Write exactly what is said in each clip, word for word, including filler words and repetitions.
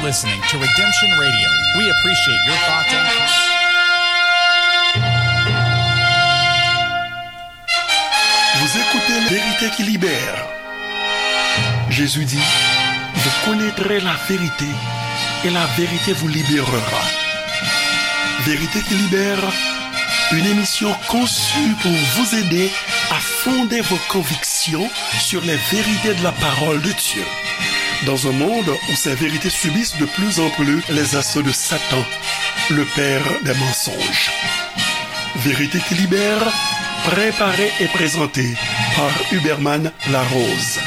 Listening to Redemption Radio. We appreciate your thoughts and comments. Vous écoutez Vérité qui libère. Jésus dit, vous connaîtrez la vérité et la vérité vous libérera. Vérité qui libère, une émission conçue pour vous aider à fonder vos convictions sur les vérités de la parole de Dieu. Dans un monde où ces vérités subissent de plus en plus les assauts de Satan, le père des mensonges. Vérité qui libère, préparée et présentée par Huberman Larose.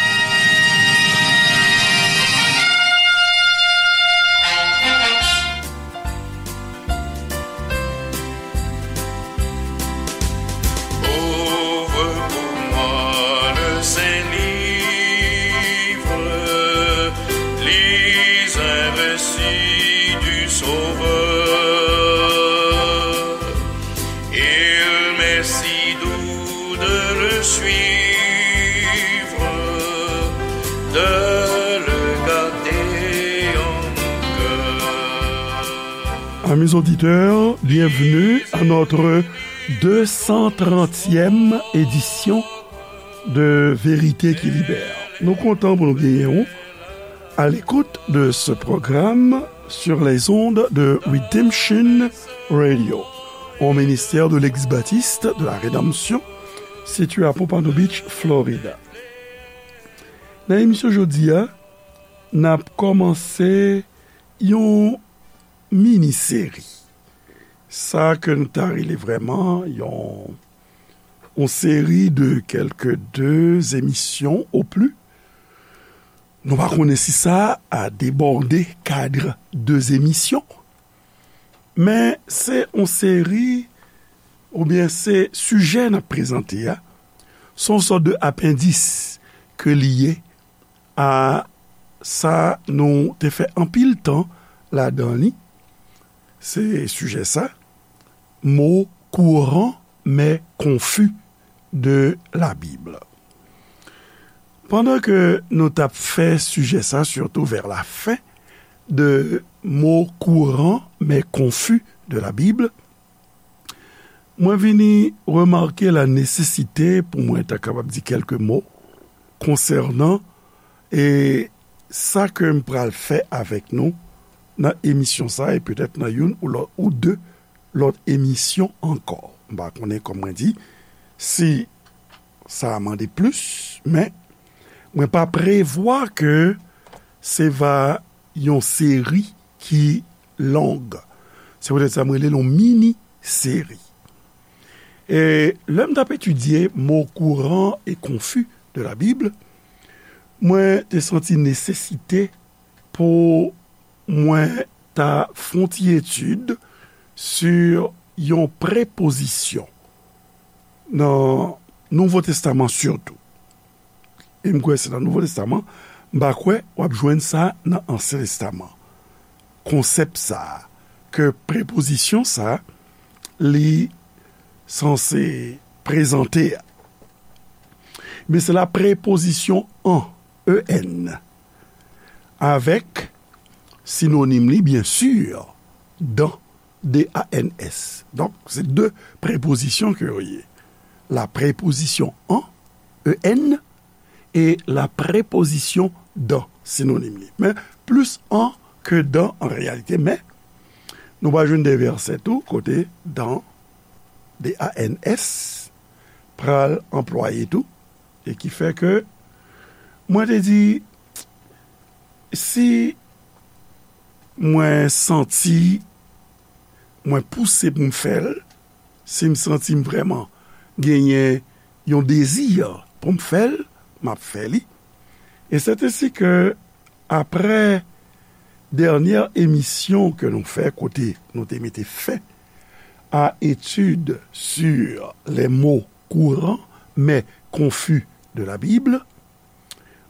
Ouvre pour moi le Saint-Livre, lis un récit du Sauveur. Il m'est si doux de le suivre, de le garder en mon cœur. Amis auditeurs, bienvenue à notre deux cent trentième édition de Vérité qui Libère. Nou kontan pou nou genyen ou à l'écoute de ce programme sur les ondes de Redemption Radio, au ministère de l'Ex-Baptiste de la Rédemption, situé à Pompano Beach, Florida. Nan emisyon jodi a, n ap kòmanse yon mini seri. Sa ke n ta rele vrèman yon, yon seri de kèlke de emisyon o pli. Nou pa konnen si sa a debòde kad de emisyon. Men se yon seri, oubyen se sijè n ap prezante a, se yon sòt de apendis ke li ye a sa nou te fè anpil tan ladan li. Se sijè sa, mots courants mais confus de la Bible. Pandan ke nou t ap fè sijè sa, surtout vers la fin, de mots courants mais confus de la Bible, mwen vini remake la nesesite pou mwen ta kapab di kèlke mo konsènan, e, sa ke m pral fè avèk nou nan emisyon sa, e petèt nan youn ou lòt, ou de lòt emisyon ankò. M pa konnen, kòm mwen di, si sa a mande plis, men mwen pa prevwa ke se va yon seri ki long. Se poutèt sa mwen rele l yon mini seri. E lè m t ap etidye mots courants et confus de la Bible, mwen te santi nesesite pou mwen ta fè yon ti etid sou yon prepozisyon nan Nouvo Testaman sitou. E m kwè se nan Nouvo Testaman, m pa kwè w ap jwenn sa nan Ansyen Testaman. Konsèp sa a, ke prepozisyon sa a, li sanse prezante a. Men se la prepozisyon an, E N, avèk sinonim li, byen si, dans, D A N S. Donk, se de prepozisyon ke yo ye. La prepozisyon an, E N, e la prepozisyon dans, sinonim li. Men plis an ke dans an reyalite, men nou va jwenn de vèsè tou kote dans, D A N S, pral anplwaye tou, e ki fè ke mwen te di, si mwen santi mwen pouse pou m fè l, si m santi m vrèman genyen yon dezi pou m fè l, m ap fè li. E sètensi ke aprè dènyè emisyon ke nou fè, kote nou te mete fen à étude sur les mots courants mais confus de la Bible,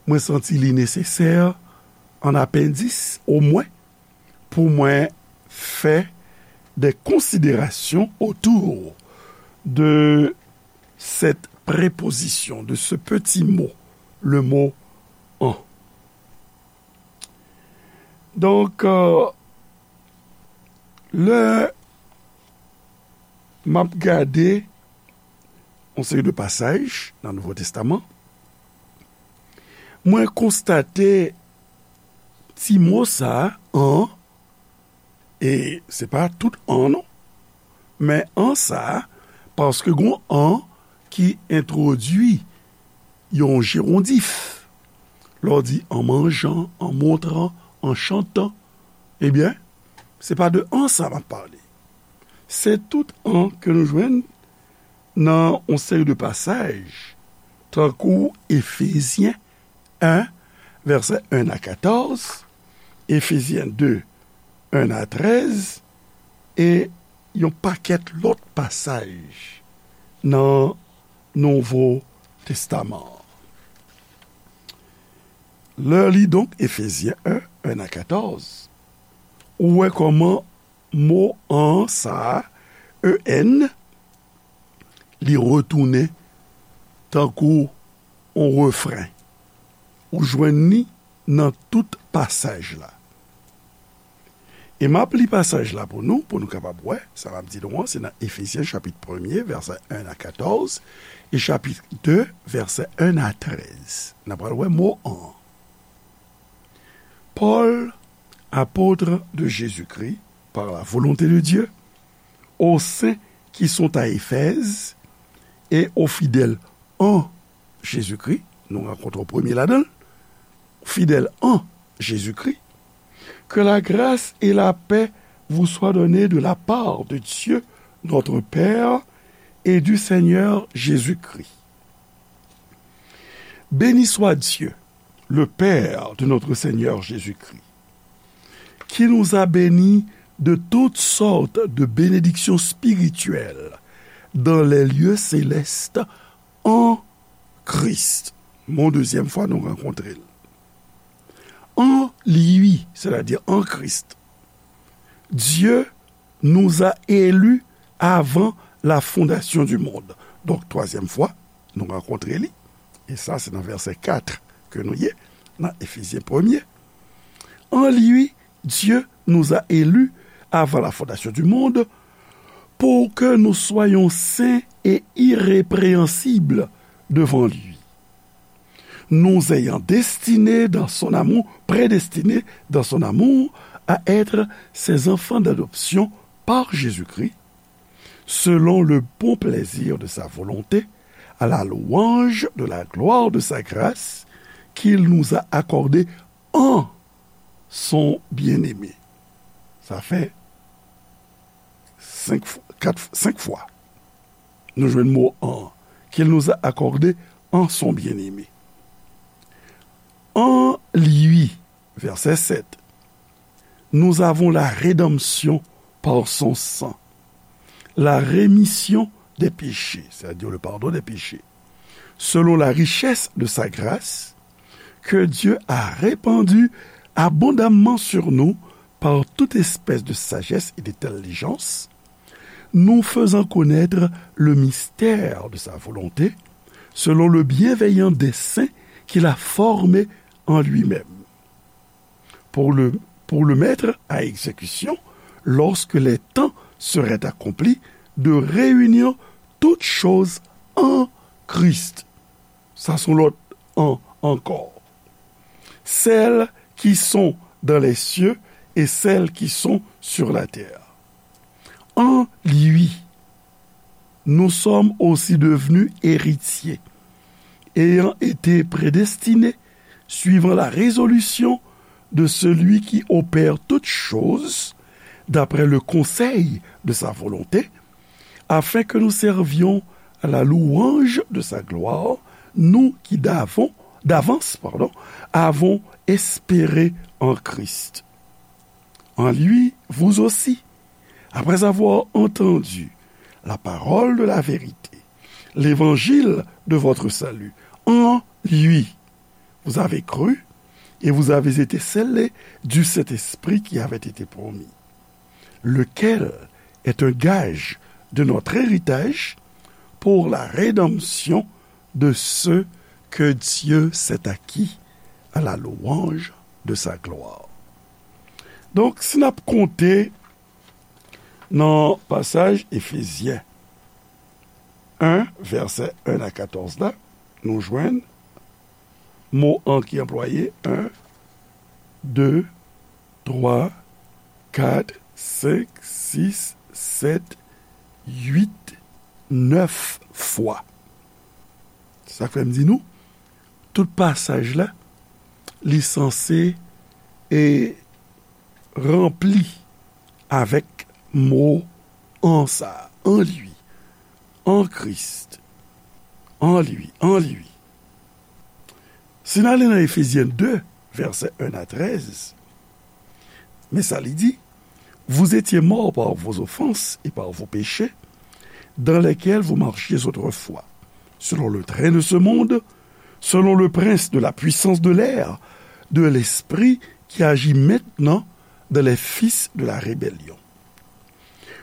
mwen santi li nesesè, an apendis omwen, pou mwen fè des considérations autour de cette préposition, de ce petit mot, le mot an. Donk, euh, lè m ap gade yon seri de pasaj nan Nouvo Testaman, mwen konstate ti mo sa a, an, e se pa tout an non, men an sa a, paske gon an ki entwodui yon jerondif. Lè w di an manjan, an montran, an chantan, ebyen, se pa de an sa m ap pale. Se tout an ke nou jwenn nan yon seri de pasaj, tankou Efezyen en, vèsè en a katòz, Efezyen de, en a trèz, e yon pakèt lòt pasaj nan Nouvo Testaman an. Lè w li donk Efezyen en, en a katòz, ou wè kòman mo an sa a, E N, li retounen tankou yon refren. Ou jwenn li nan tout pasaj la. E m ap li pasaj la pou nou, pou nou kapab wè, sa m ap di nou an, se nan Efezyen chapit premye, vèsè en a katòz, e chapit de, vèsè en a trèz. N a pral wè mo an. Paul, apôtre de Jésus-Christ, par la volonté de Dieu, aux saints qui sont à Éphèse et aux fidèles en Jésus-Christ, nou rankontre premye ladan l, fidèle en Jésus-Christ, que la grâce et la paix vous soient données de la part de Dieu, notre Père, et du Seigneur Jésus-Christ. Béni soit Dieu, le Père de notre Seigneur Jésus-Christ, qui nous a bénis de toutes sortes de bénédictions spirituelles dans les lieux célestes en Christ. Mon dezyèm fwa nou rankontre l. En lui, c'est-à-dire en Christ, Dieu nous a élus avant la fondation du monde. Donk, twazyèm fwa, nou rankontre li. E sa, se nan vèsè kat ke nou ye, nan Efezyen premye. En lui, Dieu nous a élus avant la fondation du monde pour que nous soyons saints et irrépréhensibles devant lui. Nous ayant destinés dans son amour, prédestinés dans son amour à être ses enfants d'adoption par Jésus-Christ, selon le bon plaisir de sa volonté, à la louange de la gloire de sa grâce qu'il nous a accordée en son bien-aimé. Sa fè senk fwa, kat, senk fwa. Nou jwenn mo en, qu'il nous a accordé en son bien-aimé. En lui, verset sept, nous avons la rédemption par son sang, la rémission des péchés, c'est-à-dire le pardon des péchés, selon la richesse de sa grâce, que Dieu a répandue abondamment sur nous par toute espèce de sagesse et d'intelligence, nous faisant connaître le mystère de sa volonté, selon le bienveillant dessein qu'il a formé en lui-même, pour le, pour le mettre à exécution lorsque les temps seraient accomplis, de réunir toutes choses en Christ. Sa se yon lòt en ankò. Celles qui sont dans les cieux et celles qui sont sur la terre. En lui, nous sommes aussi devenus héritiers, ayant été prédestinés suivant la résolution de celui qui opère toutes choses, d'après le conseil de sa volonté, afin que nous servions à la louange de sa gloire, nous qui d'avant, d'avance, pardon, avons espéré en Christ. En lui, vous aussi, après avoir entendu la parole de la vérité, l'évangile de votre salut, en lui, vous avez cru et vous avez été scellés du Saint-Esprit qui avait été promis, lequel est un gage de notre héritage pour la rédemption de ceux que Dieu s'est acquis à la louange de sa gloire. Donk, si n ap konte nan pasaj Efezyen en, vèsè en a katòz la, nou jwenn mo an ki anplwaye, en, de, twa, kat, senk, sis, sèt, uit, nèf fwa. Sa k fè m di nou, tout pasaj la, li sanse e ranpli avèk mo an sa, en lui, en Christ, en lui, en lui. Si n ale nan Efezyen de, vèsè en a trèz, men sa li di, Vous étiez morts par vos offenses et par vos péchés, dans lesquels vous marchiez autrefois, selon le train de ce monde, selon le prince de la puissance de l'air, de l'esprit qui agit maintenant dans les fils de la rébellion.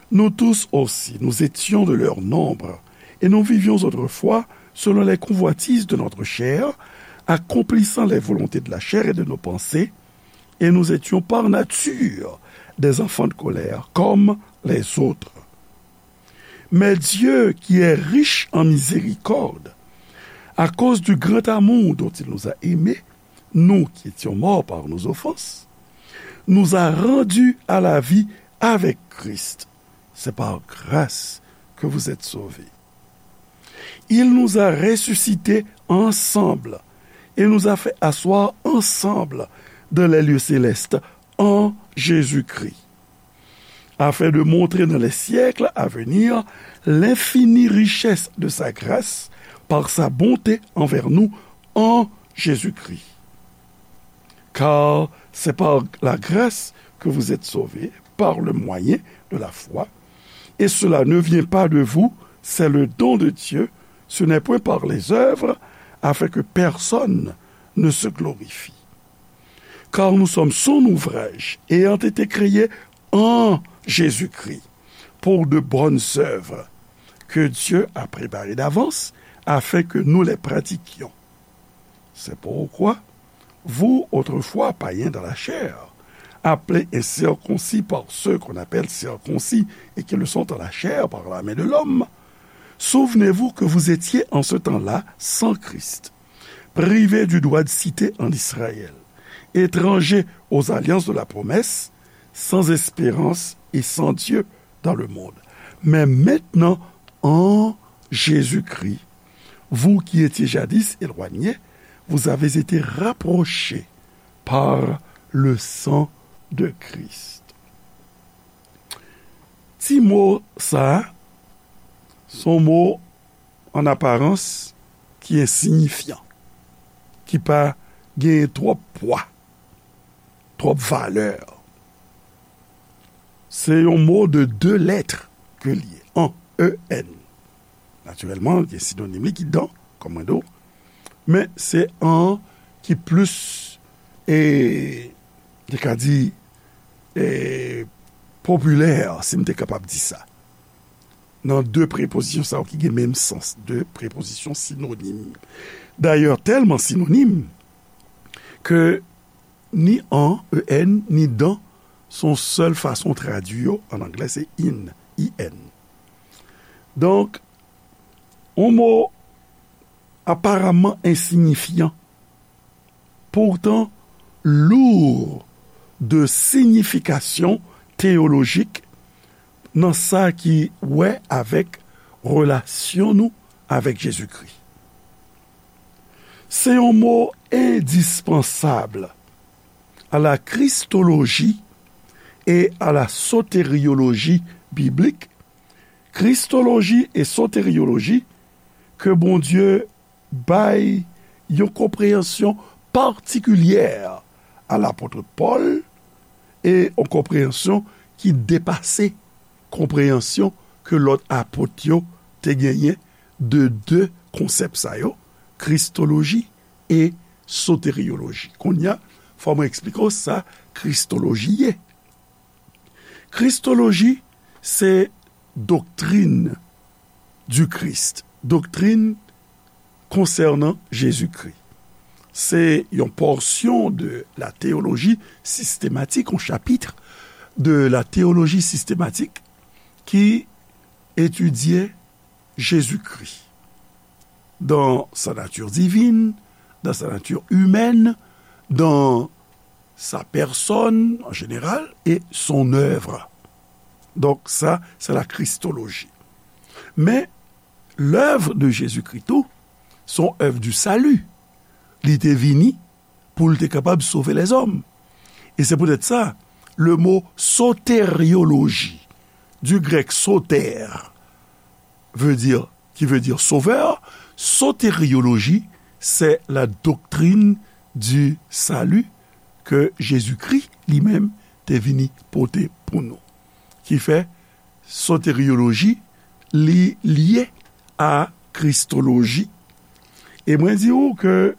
Nous tous aussi, nous étions de leur nombre, et nous vivions autrefois selon les convoitises de notre chair, accomplissant les volontés de la chair et de nos pensées, et nous étions par nature des enfants de colère, comme les autres. Mais Dieu, qui est riche en miséricorde, à cause du grand amour dont il nous a aimés, nous qui étions morts par nos offenses, nous a rendus à la vie avec Christ. C'est par grâce que vous êtes sauvés. Il nous a ressuscités ensemble et nous a fait asseoir ensemble dans les lieux célestes en Jésus-Christ, afin de montrer dans les siècles à venir l'infinie richesse de sa grâce par sa bonté envers nous en Jésus-Christ. Car c'est par la grâce que vous êtes sauvés, par le moyen de la foi, et cela ne vient pas de vous, c'est le don de Dieu, ce n'est point par les œuvres, afin que personne ne se glorifie. Car nous sommes son ouvrage, ayant été créés en Jésus-Christ, pour de bonnes œuvres, que Dieu a préparées d'avance, afin que nous les pratiquions. C'est pourquoi, vous, autrefois païens dans la chair, appelés incirconcis par ceux qu'on appelle circoncis et qui le sont en la chair par la main de l'homme, souvenez-vous que vous étiez en ce temps-là sans Christ, privés du droit de cité en Israël, étrangers aux alliances de la promesse, sans espérance et sans Dieu dans le monde. Mais maintenant, en Jésus-Christ, vous qui étiez jadis éloignés, vous avez été rapprochés par le sang de Christ. Ti mo sa a, se yon mo an aparans ki ensiyifyan, ki pa genyen twòp pwa, twòp valè. Se yon mo de de lèt ke li ye, en, E N. Natirèlman, gen sinonim li ki dan, kòm mwen di w. Men se en ki plis, e, te ka di, e, popilè, si m te kapab di sa. Nan de prepozisyon sa yo ki gen menm sans, de prepozisyon sinonim. Dayè, tèlman sinonim ke ni en, E N, ni dan, se yon sèl fason tradui yo, an anglè se in, I N. Donk, yon mo aparamman ensiyifyan, pourtant lourd de signification théologique nan sa ki wè avèk relasyon nou avèk Jezikri. Se yon mo endispansab à la christologie et à la soteriologie biblique. Kristoloji e soteriyoloji ke Bondye bay yon konpreyansyon patikilyè a lapot Pòl, e yon konpreyansyon ki depase konpreyansyon ke lòt apot yo te genyen de de konsèp sa yo, kristoloji e soteriyoloji. Kounye a, fò mwen eksplike w sa kristoloji ye. Kristoloji se doctrine du Christ, doktrin konsènan Jezikri. Se yon pòsyon de la théologie systématique, yon chapit de la théologie systématique ki etidye Jezikri dans sa nature divine, dans sa nature humaine, dans sa personne en général et son œuvre. Donk, sa, se la kristoloji. Men, lèv de Jezikri tou, se yon èv di sali. Li te vini pou l te kapab sove lèzòm. E se poutèt sa, le mo soterioloji, du grec soter, veut dire, qui veut dire sauveur, soterioloji, c'est la doctrine du salut que Jésus-Christ li menm te vini pote pou nou. Ki fè soterioloji, li lye a kristoloji. E mwen di ou ke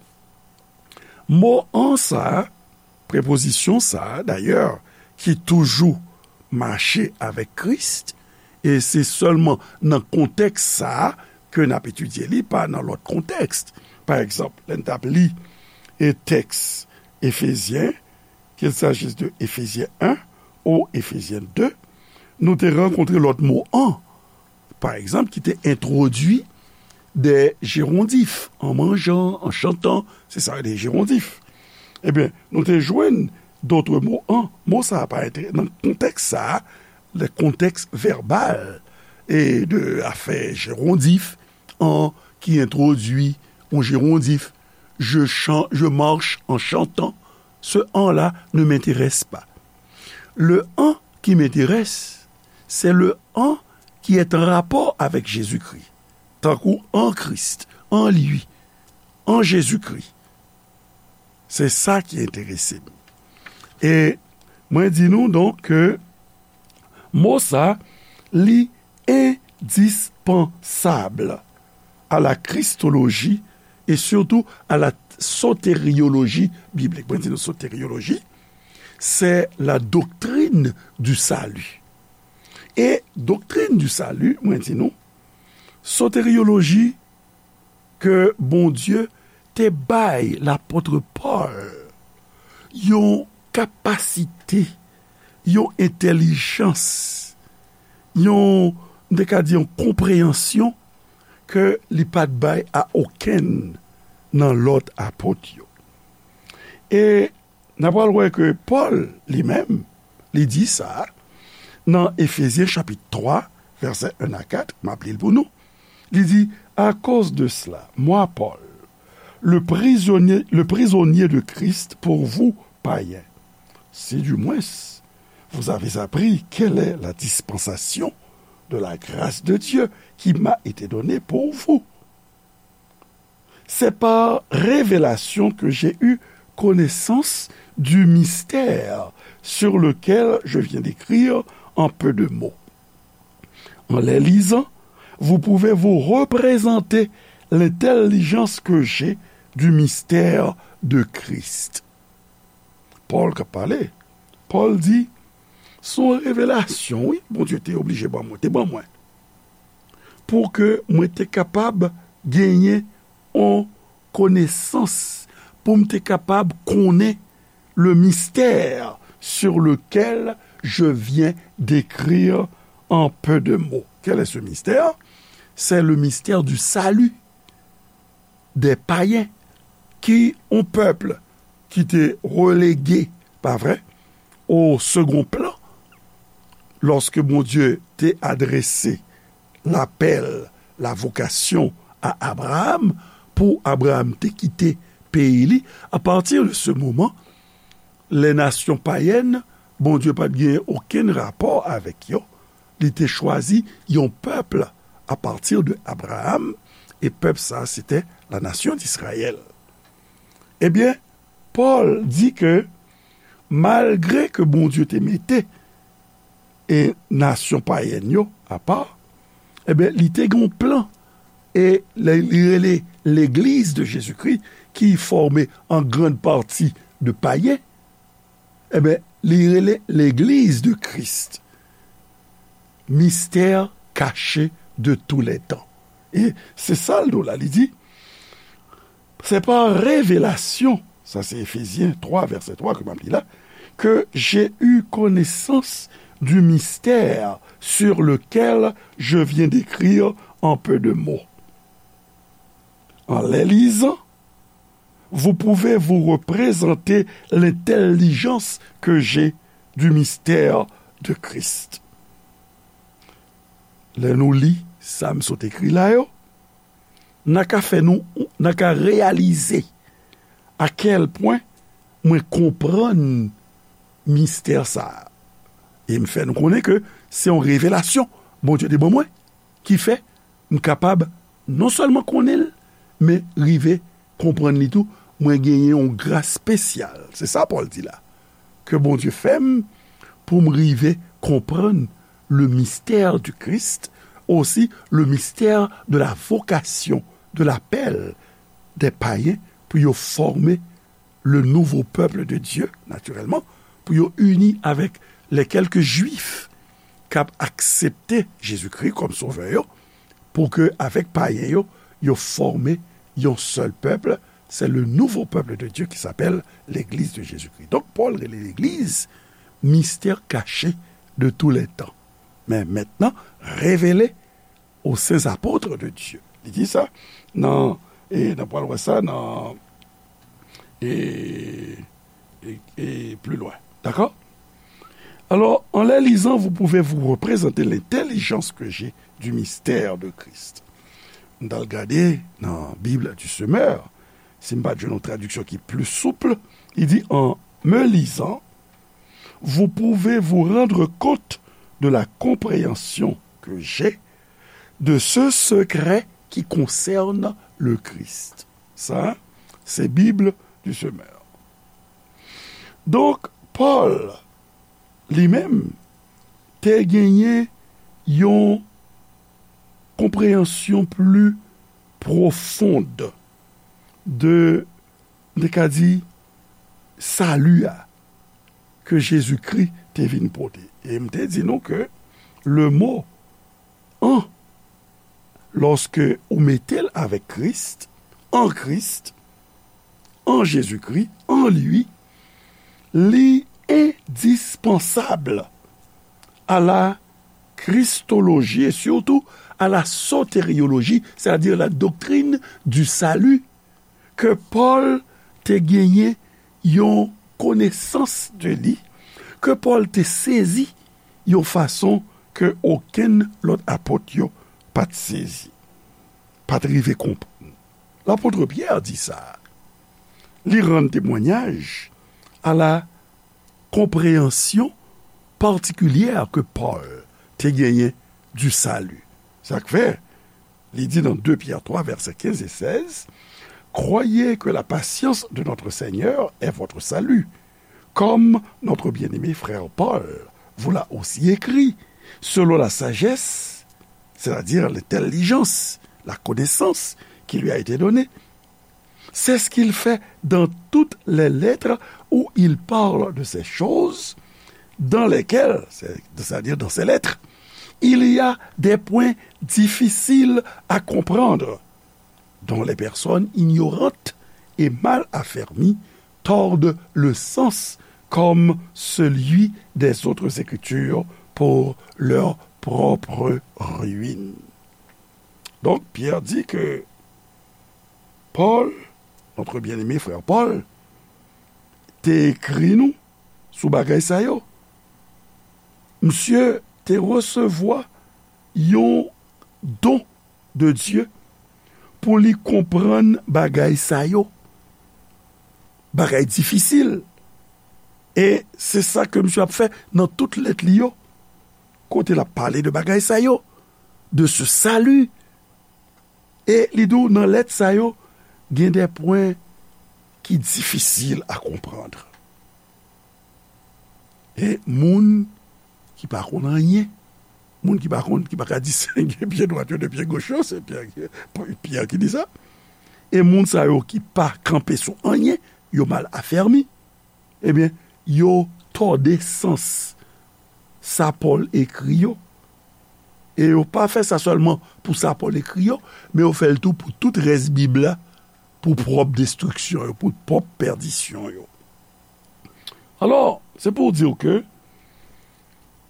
mo an sa, prepozisyon sa, dayè, ki toujou mache avèk Kris, e se sèlman nan kontèks sa ke n ap etidye li, pa nan lòt kontèks. Pa egzanp, lè n t ap li e tèks Efezyen, qu'il s'agisse de Éphésiens un ou Éphésiens deux, nou te rankontre lòt mo an, pa egzanp, ki te entwodui des gérondifs, en mangeant, en chantant, se sa, des gérondifs. Ebyen, nou te jwenn d'autres mots an, mo sa a pa entere-, nan kontèks sa a, le contexte verbal e de afè gérondif, an ki entwodui yon gérondif, je chan-, je marche en chantant, ce an la ne m'intéresse pas. Le an qui m'intéresse, c'est le an qui est en rapport avec Jésus-Christ, tankou en Christ, en lui, en Jésus-Christ. Se sa ki enterese m. E mwen di nou donk ke mo sa, li endispansab à la christologie et surtout à la soterioloji biblik. Mwen di nou soterioloji, c'est la doctrine du salut. E doktrin du salut, mwen di nou, soterioloji ke Bondye te bay lapòt Pòl yon kapasite, yon entèlijans, yon, m te ka di, yon konpreyansyon ke li pa t bay a okenn nan lòt apot yo. E n a pral wè ke Pòl, li menm, li di sa nan Efezyen chapit twa, vèsè en a kat, m ap li l pou nou. Li di, à cause de cela, moi, Paul, le prisonnier, le prisonnier de Christ pour vous, païens, si du moins vous avez appris quelle est la dispensation de la grâce de Dieu qui m'a été donnée pour vous. C'est par révélation que j'ai eu connaissance du mystère sur lequel je viens d'écrire en peu de mots. En les lisant, vous pouvez vous représenter l'intelligence que j'ai du mystère de Christ. Pòl k ap pale. Pòl di, se yon revelasyon, wi, Bondye te oblije ban mwen, te ban mwen. Pou ke mwen te kapab genyen yon konesans, pou m te kapab konnen le mystère sur lequel je viens d'écrire en peu de mots. Quel est ce mystère? C'est le mystère du salut des païens, ki yon pèp ki te relege, pa vre, au second plan, lòske Bondye te adrese lapèl, la vocation à Abraham, pou Abraham te kite peyi li, à partir de ce moment, les nations païennes, Bondye pa t gen okenn rapò avèk yo. Li te chwazi yon pèp à partir de Abraham, e pèp sa, se te la nation d'Israël. Ebyen, Pòl di ke malgre ke Bondye te mete e nasyon payèn yo apa, ebyen, li te gen yon plan. E li, li rele Legliz de Jezikri, ki fòme an grann pati de payen, ebyen, li rele Legliz de Kris. Mystère caché de tous les temps. E se sa l di w la, li di, C'est par révélation, sa se Efezyen twa, vèsè twa ke m ap li la, que j'ai eu connaissance du mystère sur lequel je viens d'écrire en peu de mots. En les lisant, vous pouvez vous représenter l'intelligence que j'ai du mystère de Christ. Lè nou li sa m sot ekri la yo, n a ka fè nou, n a ka reyalize a kèl pwen mwen konprann mistè sa a. E m fè nou konnen ke se yon revelasyon Bondye te ban mwen ki fè m kapab non sèlman konnen l, men rive konprann li tou. Mwen genyen yon gras espesyal. Se sa Pòl di la. Ke Bondye fè m pou m rive konprann le mystère du Christ, aussi le mystère de la vocation, de l'appel des païens pou yo fòme le nouveau peuple de Dieu, naturellement, pou yo ini avèk les quelques juifs k ap aksepte Jezikri kòm sovè yo, pou ke avèk payen yo, yo fòme yon sèl pèp, c'est le nouveau peuple de Dieu qui s'appelle l'Église de Jésus-Christ. Donk, Pòl rele legliz mystère caché de tous les temps, mais maintenant révélé aux saints apôtres de Dieu. Li di sa nan, e n ap pral wè sa nan, e, e, e plus loin. D'accord? Alors, en les lisant, vous pouvez vous représenter l'intelligence que j'ai du mystère de Christ. M t al gade nan Bible du Semeur, si m pa t jwenn yon tradiksyon ki pli souple, li di, en me lisant, vous pouvez vous rendre compte de la compréhension que j'ai de ce secret qui concerne le Christ. Sa, se Bible du Semeur. Donk, Pòl, li menm, te genyen yon konpreyansyon pli pwofon de, m te ka di, sali a ke Jezikri te vin pote. E m te di nou ke le mo an, lòske ou mete l avèk Kris, an Kris, an Jezikri, en lui, li endispansab à la christologie et surtout à la sotériologie, c'est-à-dire la doctrine du salut, ke Pòl te genyen yon konesans de li, ke Pòl te sezi yon fason ke okenn lòt apot yo pa t sezi, pa t rive konprann. Lapot Pyè di sa. Li rann temwanyaj a la konpreyansyon patikilyè ke Pòl te genyen du salut. Sa k fè, li di nan de Pyè twa, vèsè kenz e sèz, croyez que la patience de notre Seigneur est votre salut. Comme notre bien-aimé frère Paul vous l'a aussi écrit, selon la sagesse, c'est-à-dire l'intelligence, la connaissance qui lui a été donnée, c'est ce qu'il fait dans toutes les lettres où il parle de ces choses dans lesquelles, c'est-à-dire dans ces lettres, il y a des points difficiles à comprendre, dont les personnes ignorantes et mal affermies tordent le sens comme celui des autres Écritures pour leur propre ruine. Donc, Pierre dit que Paul, notre bien-aimé frère Paul, te ekri nou sou bagay sa yo. Misye te resevwa yon don de Dye pou li konprann bagay sa yo. Bagay difisil. E se sa ke misye ap fè nan tout lèt li yo. Kote l ap pale de bagay sa yo, de ce salut. E li di w nan lèt sa yo, gen de pwen ki difisil a konprann. E moun ki pa konn anyen, moun ki pa konn, ki pa ka disenge pye dwat yo de pye goch yo, se Pyè, Pyè ki di sa. E moun sa yo ki pa kanpe sou anyen, yo mal afèmi. Ebyen, yo tòde sans sa Pòl ekri yo. E yo pa fè sa sèlman pou sa Pòl ekri yo, men yo fè l tou pou tout rès Bib la, pou pwòp destriksyon yo, pou pwòp pèdisyon yo. Alò, se pou w di w ke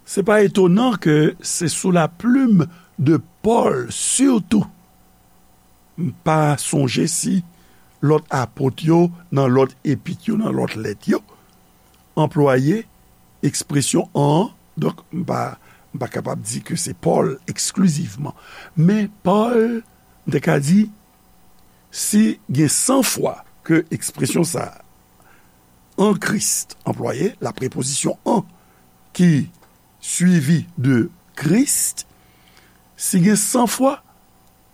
se pa etonan ke se sou la plume de Paul, sitou, m pa sonje si lòt apot yo, nan lòt epit yo, nan lòt lèt yo, anplwaye ekspresyon an. Donk, m pa, m pa kapab di ke se Paul eksklizivman. Men Paul, m te ka di, si gen san fwa ke ekspresyon sa a, an Kris, anplwaye, la prepozisyon an ki swivi de Kris, si gen san fwa,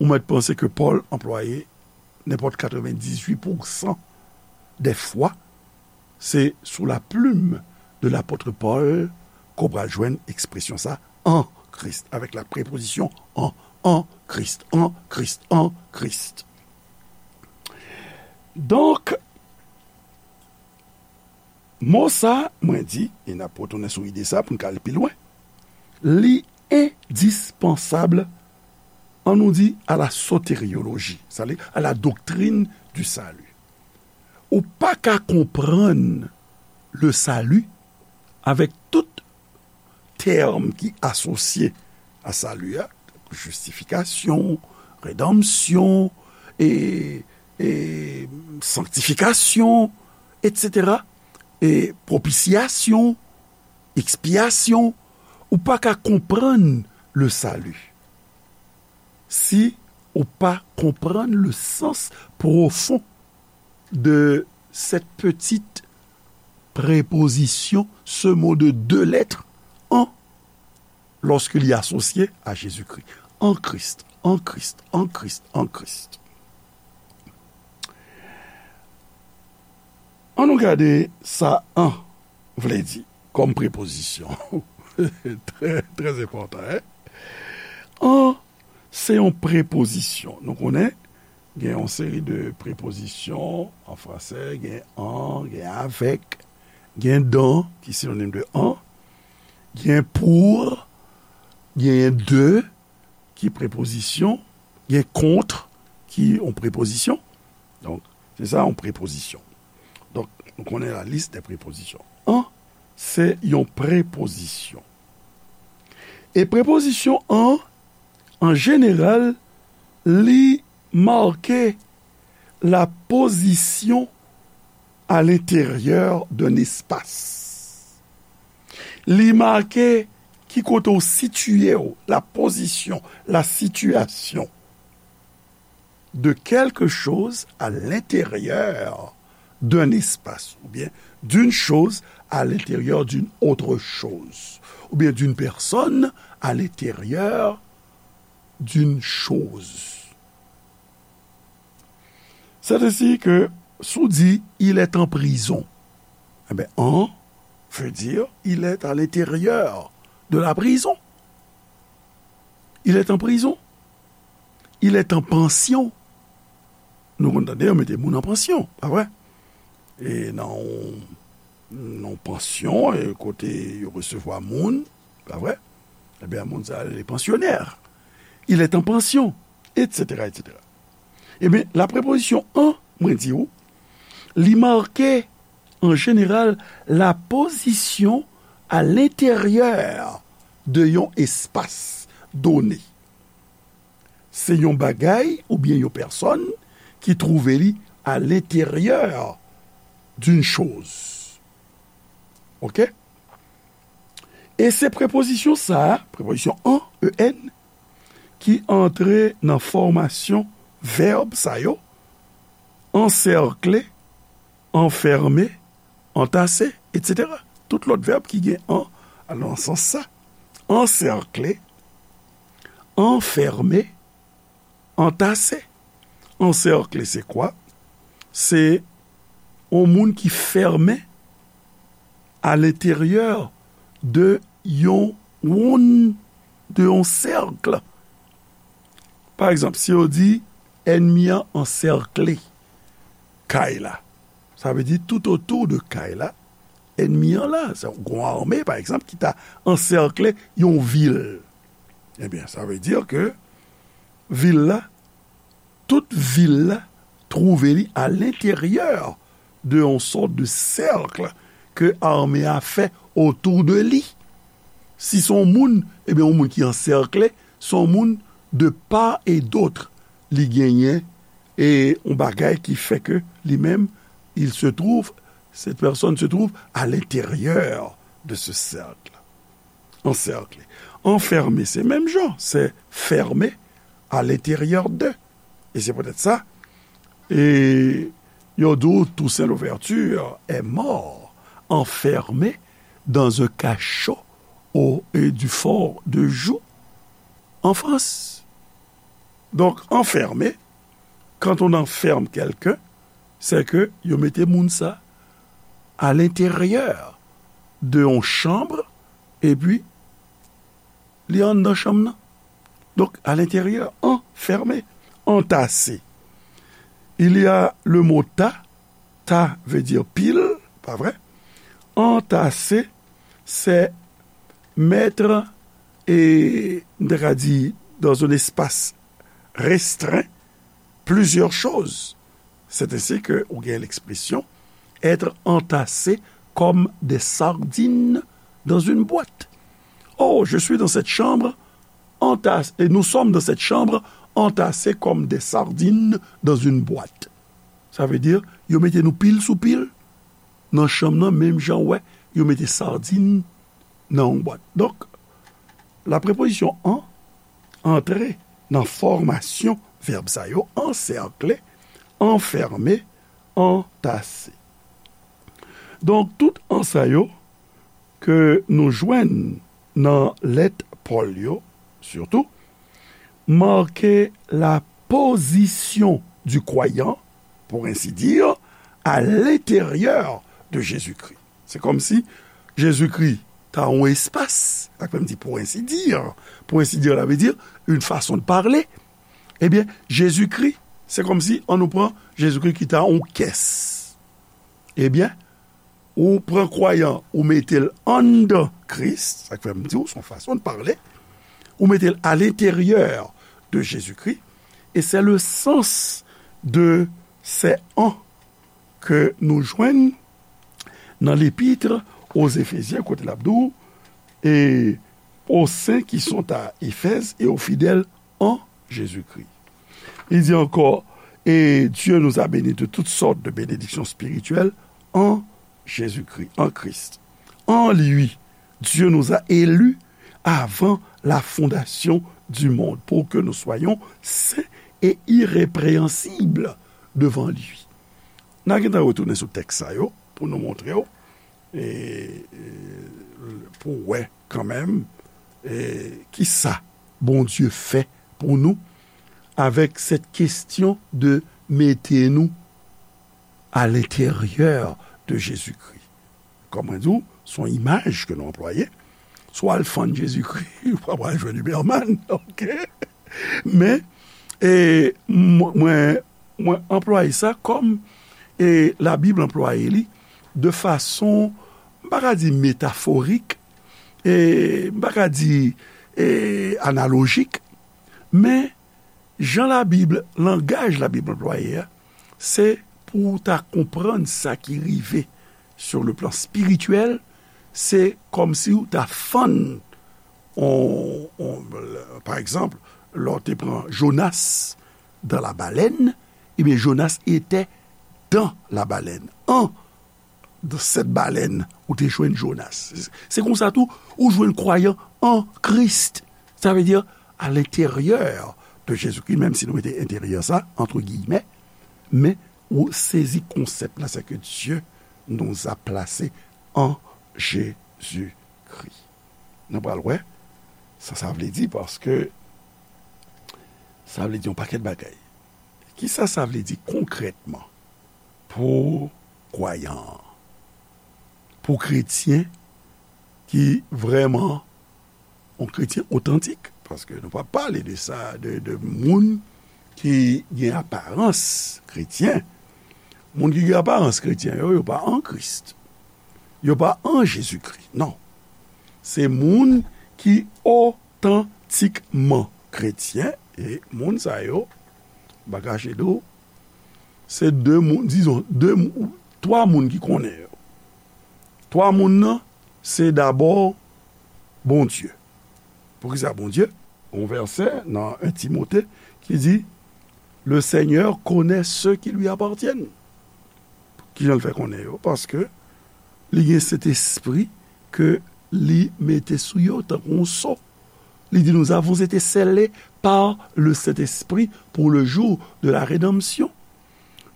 ou mèt panse ke Paul anplwaye nenpòt katrevendizuit pousan dè fwa, se sou la plume de l'apôtre Paul ke w pral jwenn ekspresyon sa, an Kris, avèk la prepozisyon an, an Kris, an Kris, an Kris. Donk, mo sa, mwen di, e n ap retounen sou ide sa pou n ka al pi lwen, li endispansab, an nou di, à la soteriologie, c'est-à-dire à la doctrine du salut. Ou pa ka konprann le salut avèk tout tèm ki asosye a sali a, jistifikasyon, redanmsyon, e, e sanktifikasyon, etsetera, e pwopisyasyon, ekspyasyon, ou pa ka konprann le salut si ou pa konprann le sens profond de cette petite préposition, ce mot de deux lettres, en, lorsqu'il est associé à Jésus-Christ. En Christ, en Christ, en Christ, en Christ. Ann nou gade sa an vle di kòm prepozisyon. Trè, trè enpòtan, en? An se yon prepozisyon. Nou konnen, gen yon seri de prepozisyon an franse, gen en, gen avec, gen dans, ki sinonim de en, gen pour, gen de, ki prepozisyon, gen contre, ki yon prepozisyon. Donk, se sa yon prepozisyon. Donk, nou konnen la liste des prépositions. En se yon prepozisyon. E prepozisyon an, an jeneral, li make la position à l'intérieur d'un espace. Li make ki kote w sitiye w, la position, la situation de quelque chose à l'intérieur d'un espace, ou bien d'une chose à l'intérieur d'une autre chose, ou bien d'une personne à l'intérieur d'une chose. C'est ainsi que si w di, il est en prison, eh bien, en veut dire, il est à l'intérieur de la prison. Il est en prison. Il est en pension. Nou konn tande yo mete moun an pansyon, pa vre? E nan yon, nan yon pansyon, e kote yo resevwa moun, pa vre? Ebyen, moun sa, li pansyonè. Il est en pension, etsetera, etsetera. Ebyen, la prepozisyon en, mwen di w, li make, an jeneral, la position à l'intérieur de yon espas done. Se yon bagay oubyen yon pèsòn ki twouve li à l'intérieur d'une chose. Oke? E se prepozisyon sa a, prepozisyon en, en, ki antre nan fòmasyon vèb sa yo, ansèkle, anfème, antase, etsetera. Tout lòt vèb ki gen en al nan sans sa. Ansèkle, anfème, antase. Ansèkle, se kwa? Se yon moun ki fèmen à l'intérieur de yon wonn, de yon sèk. Pa egzanp, si yo di, ènmi an ansèkle kay la, sa vle di tout otou de kay la, ènmi an la. Se yon gwo ame, pa egzanp, ki ta ansèkle yon vil. Ebyen, sa vle di ke vil la, tout vil la twouve li alenteryè de yon sòt de sèk ke ame a fè otou de li. Si se yon moun, ebyen, yon moun ki ansèkle, se yon moun de part et d'autre li genyen e yon bagay ki fè ke li menm, il se trouve, cette personne se trouve à l'intérieur de ce cercle. Ansèkle. Anfèmen, se menm jan, se fèmen à l'intérieur de. E se poutèt sa, e yo di w Toussaint Louverture est mort enfermé dans un cachot au et du fort de Joux en France. Donk, anfèmen, quand on enferme quelqu'un, c'est que yo mete moun sa à l'intérieur de yon chanm, epi li anndan chanm nan. Donk, à l'intérieur, enfermé, entassé. Il y a le mot tas, tas veut dire pile, pa vre? Entassé, c'est mettre, et, m ta ka di, dans un espace restreint, plusieurs choses. C'est ainsi que ou gen l'expression être entassé comme des sardines dans une boîte. Oh, je suis dans cette chambre entassé, et nous sommes dans cette chambre entassés comme des sardines dans une boîte. Sa vle di, yo mete nou pil sou pil nan chanm nan, menm jan w wè yo mete sardin nan yon bwat. Donk, la prepozisyon an antre nan fòmasyon vèb sa yo, ansèkle, anfèmen, antase. Donk, tout an sa yo ke nou jwenn nan lèt Pòl yo, sitou, marke la position du croyant, pour ainsi dire, à l'intérieur de Jésus-Christ. Se kòmsi Jezikri ta yon espas, sa k fè m di pour ainsi dire, pour ainsi dire, la vle di, une façon de parler. Ebyen, Jezikri, se kòmsi, ann nou pran Jezikri ki ta yon kès. Ebyen, ou pran kwayan, ou mete l anndan Kris, sa k fè m di w, se yon fason de parler, ou mete l à l'intérieur de Jésus-Christ, et c'est le sens de ces en ke nou jwenn nan l'épître aux Éphésiens, kote l ap di w, et aux saints qui sont à Éphèse et aux fidèles en Jésus-Christ. Il dit encore, et Dieu nous a bénis de toutes sortes de bénédictions spirituelles en Jésus-Christ, en Christ. En lui, Dieu nous a élus avant la fondation du monde pour que nous soyons saints et irrépréhensibles devant lui. N a gentan retounen sou tèks sa yo pou nou montre w, e, e, pou w wè kanmenm, e, kisa Bondye fè pou nou avèk cette question de mete nou à l'intérieur de Jésus-Christ. Kòm mwen di w, se yon imaj ke nou anplwaye. Si w al fann Jezikri, ou pa pral jwenn Uberman, oke? Men, e, mwen, mwen, mwen anplwaye sa kòm, e, Labib anplwaye li de fason, m pa ka di metaforik, e, m pa ka di, e, analojik, men jan Labib, langaj Labib anplwaye a, se pou w ta konprann sa ki rive sur le plan spirituel, se kòmsi w ta fann, on, on, pa egzanp, lè w te pran Jonas dans la baleine, ebyen, Jonas était dans la baleine, en dans cette baleine, ou te jwenn Jonas. Se konsa tou, ou jwenn kwayan an Kris. Sa vle di, à l'intérieur de Jésus-Christ, menm si nou mete enteryè sa, entre guillemets, men ou sezi konsèp la, c'est que Dieu nous a placés en Jésus-Christ. Nou pral wè sa sa vle di, paske sa vle di yon pakèt bagay. Kisa sa vle di konkrètman pou kwayan an? Pou kretyen ki vrèman yon kretyen otantik, paske nou pa pale de sa, de, de moun ki gen aparans kretyen. Moun ki gen aparans kretyen yo, yo pa an Kris. Yo pa an Jezikri, non. Se moun ki otantikman kretyen, e moun sa yo, m pa kache di w, Se de moun, dizon, de moun, twa moun ki konnen yo. Twa moun nan, se dabò Bondye. Poukisa Bondye? Yon vèsè nan en Timote ki di, Le Seigneur connaît ceux qui lui appartiennent. Kijan l fè konnen yo? Paske li gen Sentespri ke li mete sou yo tankou yon so. Li di, Nous avons été scellés par le Saint-Esprit pour le jour de la rédemption.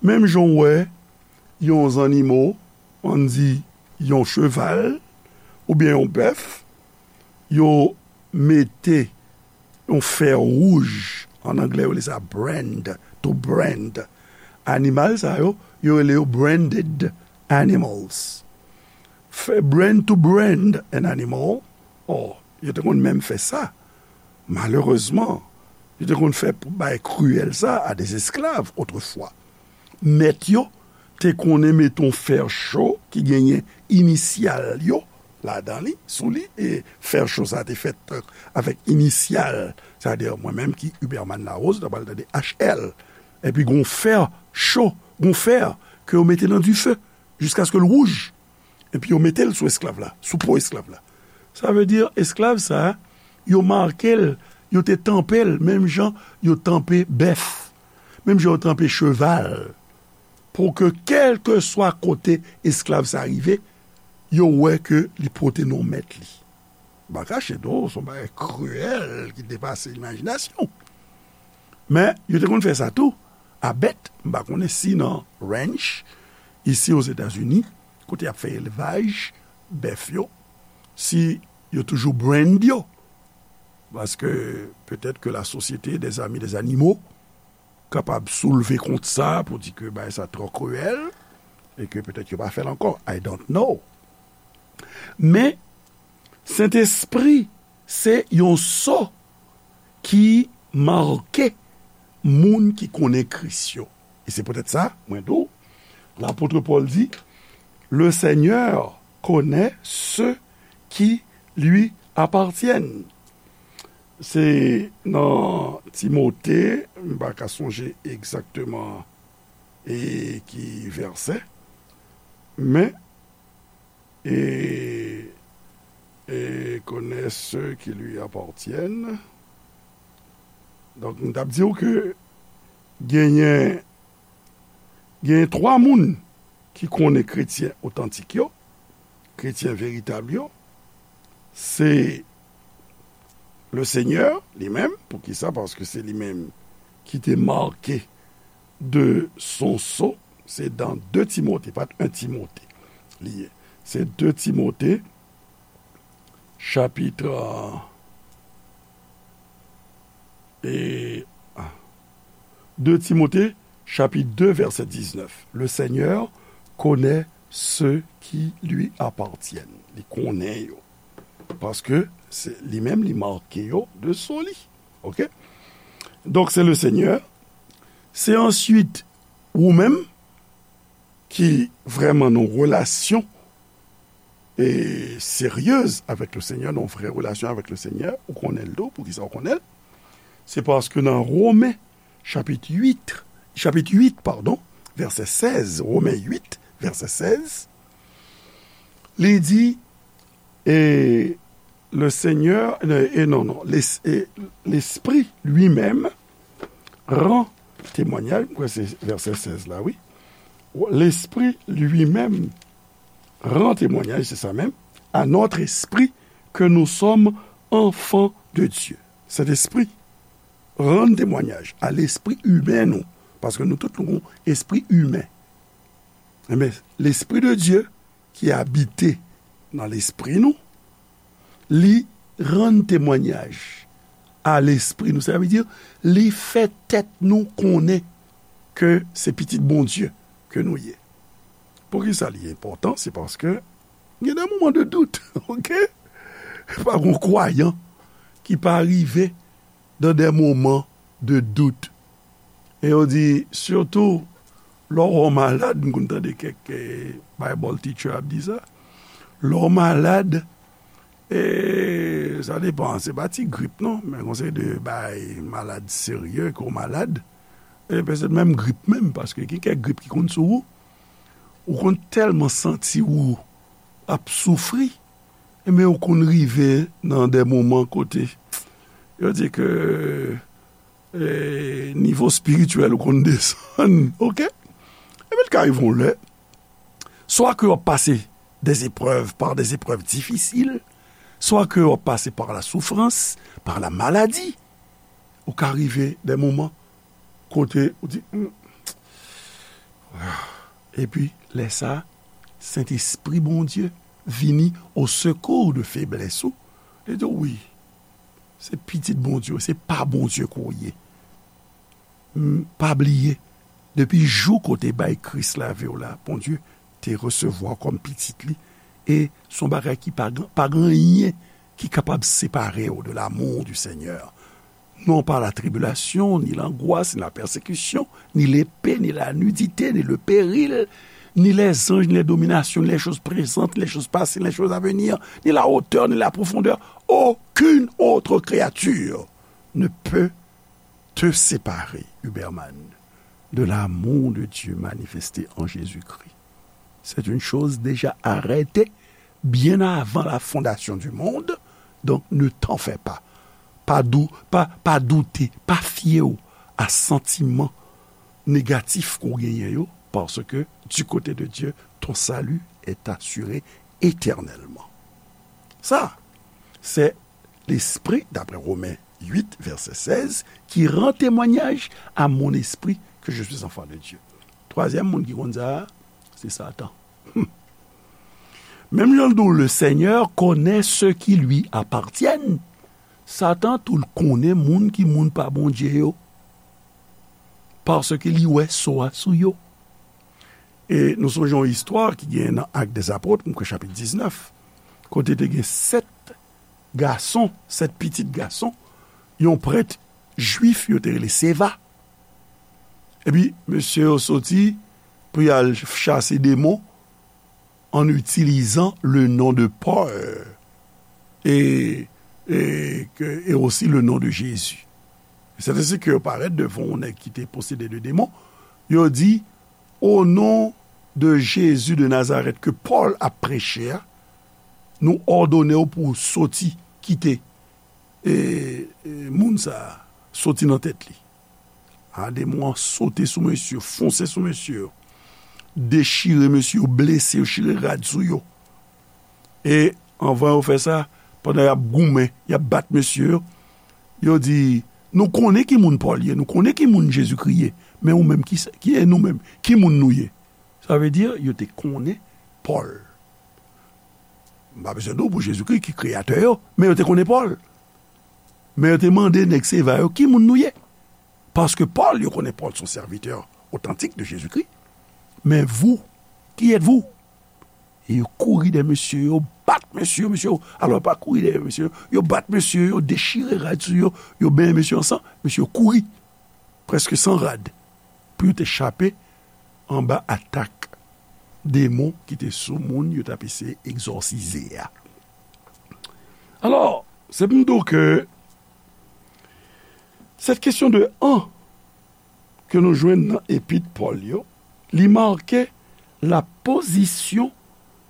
Menm jan w wè yon zannimo, ann di yon cheval, oubyen yon bèf, yo mete yon fè wouj, an anglè yo rele sa brand, to brand. Animal sa yo, yo rele yo branded animals. Fè brand to brand an animal, or, yo te konn menm fè sa. Malerezman, yo te konn fè bay kriyèl sa a de esklav otrefwa. Mèt yo te konnen mete yon fè cho ki genyen inisyal yo ladan li, sou li, e fè cho sa te fèt, euh, avèk inisyal, sètadi mwen menm ki Huberman Larose, ta pral tande H L. Epi gon fè cho, gon fè ke yo mete nan dife jiskaske l wouj. Epi yo mete l sou esklav la, sou po esklav la. Sa vle di esklav sa, yo make l, yo te tanpe l, menm jan yo tanpe bèf, menm jan yo tanpe cheval, pou ke kèlkeswa kote esklav sa rive, yo wè ke li pote non mèt li. M pa kache non, se yon bagay kriyèl ki depase imajinasyon. Men, yo te konn fè sa tou a bèt. M pa konnen si nan ranch, isi Ozetazini, kote y ap fè elvaj bèf yo, si yo toujou brand yo. Paske petèt ke la Société des Amis des Animaux kapab soulve kont sa pou di ke bagay sa twò kriyèl e ke petèt yo pa fè l ankò. I don't know. Men, Sentespri se yon so ki make moun ki konnen Kris yo. E se poutèt sa, mwen di w, lapot Pòl di, Le Seigneur connaît ceux qui lui appartiennent. Se nan Timote, m pa ka sonje egzakteman e ki vèsè, men, e, e connaît ceux qui lui appartiennent. Donk, m t ap di w ke genyen, genyen twa moun ki konnen kretyen otantik yo, kretyen veritab yo, se le Seigneur li menm. Poukisa? Paske se li menm ki te make de son so. Se dan de Timote, pa t en Timote li ye. Se de Timote, chapit, euh, e, ah, de Timote, chapit de, vèsè diznèf. Le Seigneur connaît ceux qui lui appartiennent. Li konnen yo. Paske se li menm, li make yo de son li. Oke? Donk, se le Seigneur. Se answit ou menm ki vrèman nan relasyon e seryez avèk le Seigneur, nan vrè relasyon avèk le Seigneur, ou konnen l tou, poukisa ou konnen l? Se paske nan Women, chapit uit, chapit uit, padon, vèsè sèz, Women uit, vèsè sèz, li di, e le Seigneur, e, e non, non, les-, e, l'Esprit lui-même rend témoignage, m kwè se vèsè sèz la, wi. L'Esprit lui-même rend témoignage, se sa menm, à notre esprit que nous sommes enfants de Dieu. Sentespri rann temwayaj a lespri imen nou, paske nou tout nou gon espri imen. Enben, Lespri de Dye ki abite nan lespri nou, li rann temwayaj a lespri nou. Sa vle di, li fè tèt nou konnen ke se pitit Bondye ke nou ye. Poukisa li enpòtan? Se paske gen de moman de dout, oke? Pa gon kwayan ki pa rive dans des moments de doute. E yo di, sitou, lè w malad, m konn tande kèk, eh, Bible teacher ap di sa. Lè w malad, eh, sa depan, se pa ti grip non, men gon seri de bay malad serye ke w malad. E petèt menm grip menm, paske gen kèk grip ki konn sou ou, ou konn tèlman santi ou ap soufri, men ou konn rive nan de moman kote yo di ke, e, nivo espirityèl ou konn desann, oke? Epi l ka rive yon lè, swa ke w ap pase des épreuves, par des épreuves difficiles, swa ke w ap pase par la souffrance, par la maladie, ou ka rive de moman kote ou di, "Hmm." Epi, lè sa, Sentespri Bondye vini au secours de feblès ou. Li di, "Wi, se pitit Bondye, se pa Bondye ke w ye." M, pa bliye, depi jou kote bay Kris lavi w la, Bondye te resevwa w kòm pitit li, e se yon bagay ki pa, pa gen anyen ki kapab separe w de l'amour du Seigneur. Non pas la tribulation, ni l'angoisse, ni la persécution, ni l'épée, ni la nudité, ni le péril, ni les anges, ni les dominations, ni les choses présentes, ni les choses passées, ni les choses à venir, ni la hauteur, ni la profondeur. Aucune autre créature ne peut te séparer, Huberman, de l'amour de Dieu manifesté en Jésus-Christ. C'est une chose déjà arrêtée bien avant la fondation du monde, donc ne t'en fais pas. Pa dou, pa, pa doute, pa fye w a santiman negatif ke w genyen yo, parce que du côté de Dieu, ton salut est assuré éternellement. Sa, se Lespri, d'après Romains huit, verset seize, qui rend témoignage à mon esprit que je suis enfant de Dieu. Twazyèm moun ki konn sa a, se Satan. Menm jan l di w, le Seigneur connaît ceux qui lui appartiennent. Satan tou l konnen moun ki moun pa Bondye yo, paske li wè so a sou yo. E nou sonje yon istwa ki gen nan Actes des Apôtres, m kwè chapit diznèf, kote te gen sèt gason, sèt pitit gason yon prèt jwif yo te rele Seva. Epi mesye yo soti pou y al chase demon en utilisant le nom de Paul et, et, que- et aussi le nom de Jésus. C'est ainsi que yo parèt devan yon nèg ki te posede de demon. Yo di, "O non de Jezi de Nazarèt ke Pòl ap preche a, nou òdone w pou w soti, kite, e, e, moun sa a, soti nan tèt li." A, demon an sote sou mesye, fonse sou mesye, dechire mesye, blese yo, chire rad sou yo. E anvan yo fè sa, pandan y ap goumen, y ap bat mesye yo, yo di, "Nou konnen ki moun Pòl ye, nou konnen ki moun Jezikri ye, men ou menm, ki, ki e nou menm? Ki moun nou ye?" Sa vle di, yo te konnen Pòl. M pa bezwen di w pou Jezikri ki kreyatè yo, men yo te konnen Pòl. Men yo te mande nèg Seva yo, "Ki moun nou ye?" Paske Pòl, yo konnen Pòl se yon sèvitè otantik de Jezikri. "Mais vous, qui êtes-vous?" E yo kouri dèyè mesye yo, bat mesye yo, mesye yo, alò, pa kouri dèyè mesye yo, yo bat mesye yo, dechire rad sou yo, yo benyen mesye yo an san, mesye yo kouri, prèske san rad, pou yo te chape anba atak demon ki te sou moun yo t ap eseye egzòsize a. Alò, se pou m di w ke cette question de an ke nou jwenn nan epit Pòl yo, li make la position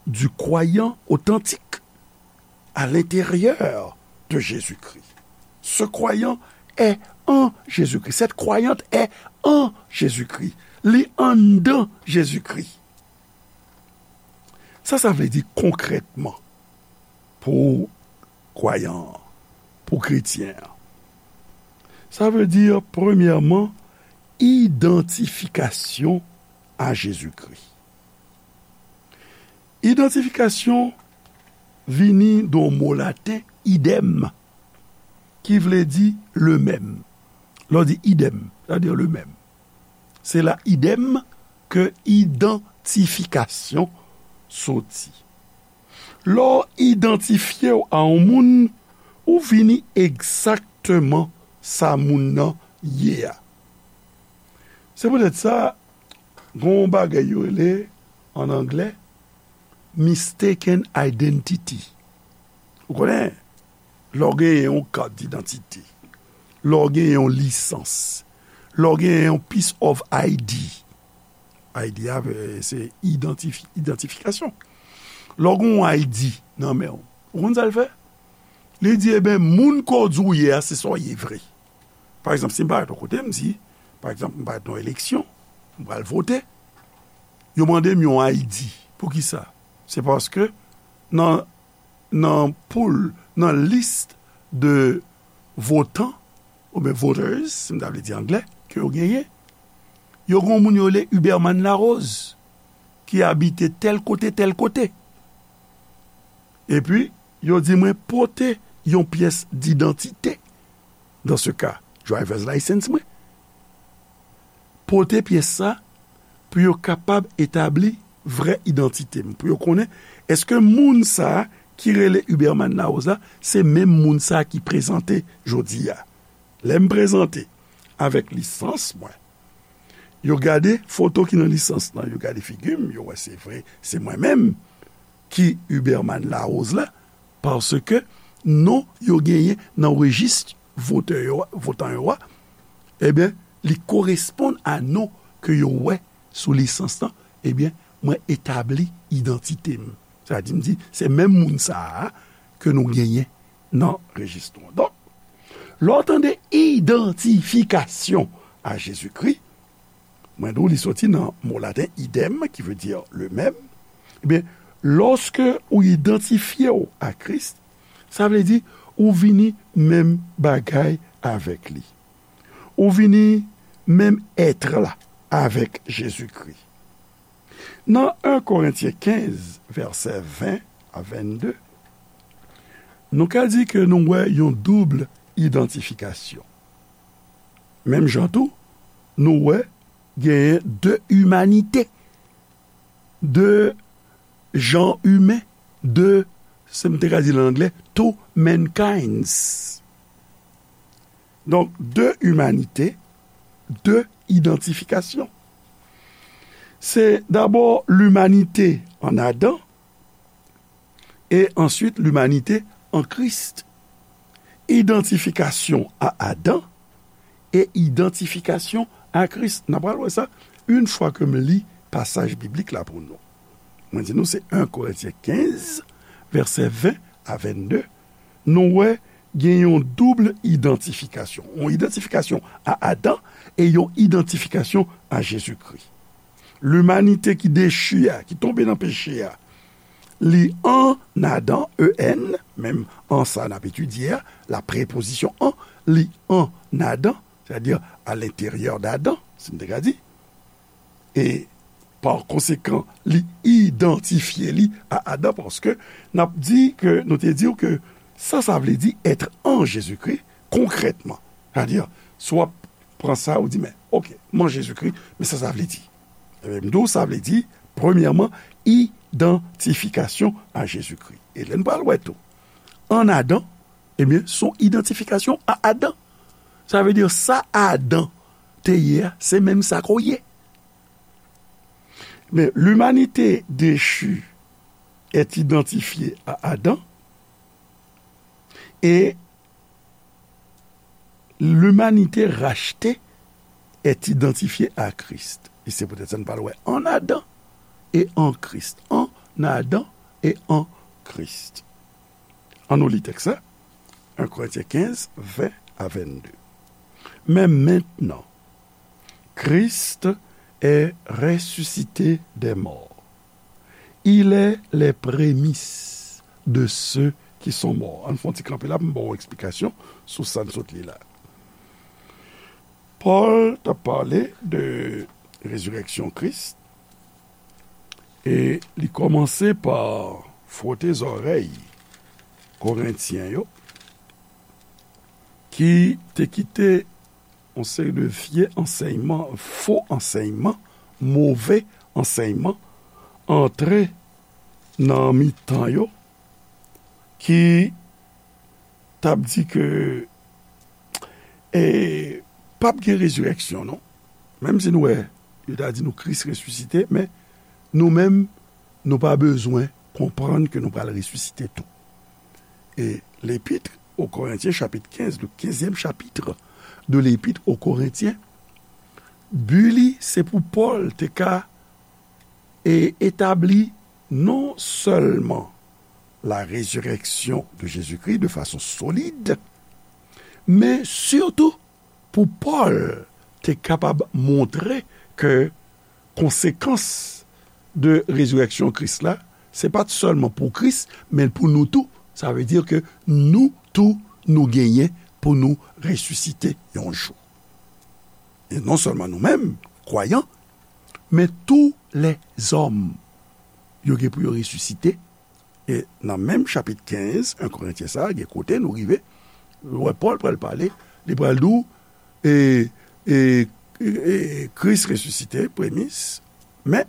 du croyant authentique à l'intérieur de Jésus-Christ. Ce croyant est en Jésus-Christ. Cette croyante est en Jésus-Christ. Li anndan Jezikri. Sa sa vle di konkrètman pou kwayan an, pou kretyen an? Sa vle di, premyèman, idantifikasyon a Jezikri. Idantifikasyon vini de yon mo laten, idem, ki vle di le même. Lè w di idem, sa vle di le même. Se la idem ke idantifikasyon soti. Lè w idantifye w a yon moun, ou vini egzakteman sa moun nan ye a. Se poutèt sa, gen yon bagay yo rele, an anglè, mistaken identity. Ou konnen, lè w genyen yon kat didantite, lè w genyen yon lisans, lè w gen yon piece of I D, I D a, eh, se idantifi-, idantifikasyon. Lè w gen yon I D nan men w, ou konn sa l fè? Li di, "Eben, moun ke w di w ye a, se sa w ye vre." Pa egzanp, si m parèt yon kote, m di, pa egzanp, m parèt nan eleksyon, m pral vote, yo mande m yon I D. Poukisa? Se paske nan, nan pool, nan lis de votan, oubyen voters, si m ta vle di anglè, ke yo genyen, yo gen yon moun yo rele Huberman Larose, ki abite tèl kote, tèl kote. Epi, yo di mwen pote yon pyès didantite. Dans ce cas, driver's license mwen. Pote pyès sa pou yo kapab etabli vrè idantite m, pou yo konnen èske moun sa a ki rele Huberman Larose la, se menm moun sa a ki prezante jodi a. Lè m prezante avèk lisans mwen, yo gade foto ki nan lisans lan, yo gade figi m, yo wè se vre, se mwen menm ki Huberman Larose la, paske non yo genyen nan rejis votè yo, votan yo a, ebyen, li koresponn a non ke yo wè sou lisans lan, ebyen, mwen etabli idantite m. Sa di, m di, se menm moun sa a ke nou genyen nan rejis nou an. Donk, lè w tande idantifikasyon a Jezikri, mwen di w li soti nan mo laten idem, ki vle di le même. Ebyen, lòske ou idantifye w a Kris, sa vle di ou vini menm bagay avèk li. Ou vini menm èt la avèk Jezikri. Nan en Korentyen kenz, vèsè ven a vennde, nou ka di ke nou wè yon doub idantifikasyon. Menm jan tou, nou wè genyen de imanite, de jan imen, de, se m te ka di l an anglè, two mankinds. Donk, de imanite, de idantifikasyon. Se dabò limanite an Adan e answit limanite an Kris. Idantifikasyon a Adan e idantifikasyon a Kris. N a pral wè sa yon fwa ke m li pasaj biblik la pou nou. Mwen di nou se en Korentyen kenz, vèsè ven a vennde. Nou wè gen yon doub idantifikasyon. Yon idantifikasyon a Adan e yon idantifikasyon a Jezikri. Limanite ki dechi a, ki tonbe nan peche a, li an Adan, E N, menm an sa n ap etidye a, la prepozisyon an, li an Adan, sètadi a lenteryè d Adan, si n te ka di. E pa konsekan, li idantifye li a Adan, paske n ap di ke, nou te di w ke sa, sa vle di èt an Jezikri, konkrètman. Sètadi, si w ap pran sa, ou di, men, oke, m an Jezikri, men sa, sa vle di. Ebyen, m di w, sa vle di, premyèman, idantifikasyon a Jezikri. E lè n pral wè tou, an Adan, ebyen, se yon idantifikasyon a Adan. Sa vle di, sa Adan te ye a, se menm sa ke w ye. Men, l'humanité déchue est identifiée à Adam et l'humanité rachetée est identifiée à Christ. E se poutèt sa n pral wè an Adan e an Kris. An Adan e an Kris. Ann nou li tèks la. En Korentyen kenz, ven a vennde. Mais maintenant, Christ est ressuscité des morts. Il est les prémices de ceux qui sont morts. Ann fè yon ti kanpe la pou m ba w eksplikasyon sou sa n sot li la. Pòl t ap pale de rezirèksyon Kris, e li kòmanse pa fwote zòrèy Korentyen yo, ki te kite yon seri de vye ansèyman, fo ansèyman, move ansèyman antre nan mitan yo, ki t ap di ke, e, p ap gen rezirèksyon, non. Menm si nou wè, yo ta di nou Kris resisite, men nou menm, nou pa bezwen konprann ke nou pral resisite tou. E l'Épître aux Corinthiens, chapitre quinze, le quinzième chapitre de l'Épître aux Corinthiens, Bi li, se pou Pòl te ka e etabli non sèlman la résurrection de Jésus-Christ de façon solide, men sitou pou Pòl te kapab montre ke konsekans de rezirèksyon Kris la, se pa t sèlman pou Kris, men pou nou tou. Sa vle di ke nou tou, nou genyen pou nou resisite yon jou. E non sèlman nou menm, kwayan, men tou lèzòm, yo gen pou yo resisite. E nan menm chapit kenz, en Korentyen sa, gen kote nou rive, wè Pòl pral pale, li pral di w, e, e, e, e Kris resisite, premis, men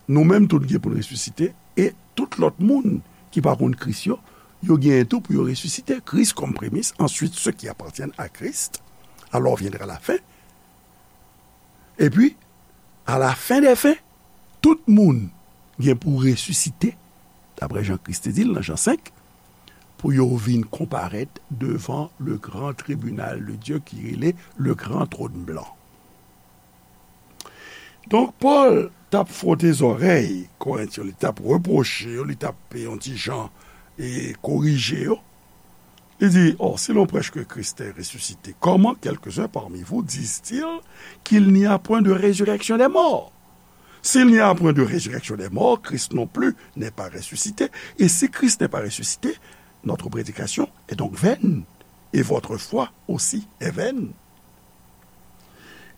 nou menm tou n gen pou n resisite, e tout lòt moun ki pa konn Kris yo, yo genyen tou pou yo resisite. Christ comme prémisse, ensuite ceux qui appartiennent à Christ, alors viendra la fin. Epi, à la fin des fins, tout moun gen pou resisite, daprè Jan Kris te di l nan Jan senk, pou yo vin konparèt devan le grand tribunal de Dieu ki rele le grand trône blanc. Donk, Pòl t ap fwote zòrèy Korent yo, li t ap repwoche yo, li t ap yon ti jan e korije yo. Li di, or, si l'on prêche que Christ est ressuscité, comment quelques-uns parmi vous disent-ils qu'il n'y a point de résurrection des morts? S'il n'y a point de résurrection des morts, Christ non plus n'est pas ressuscité. Et si Christ n'est pas ressuscité, notre prédication est donc vaine, et votre foi aussi est vaine.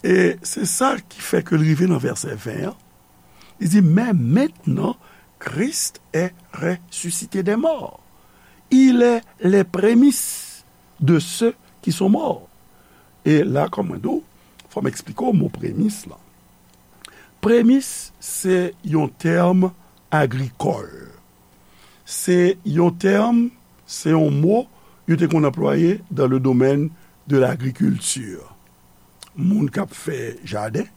E se sa ki fè ke l rive nan vèsè ven an. Li di, mais maintenant, Christ est ressuscité des morts. Il est les prémices de ceux qui sont morts. E la, kòm mwen di w, fò m eksplike w mo premis lan. Premis, se yon tèm agrikòl. Se yon tèm, se yon mo yo te konn anplwaye dans le domaine de l'agriculture. Moun k ap fè jaden,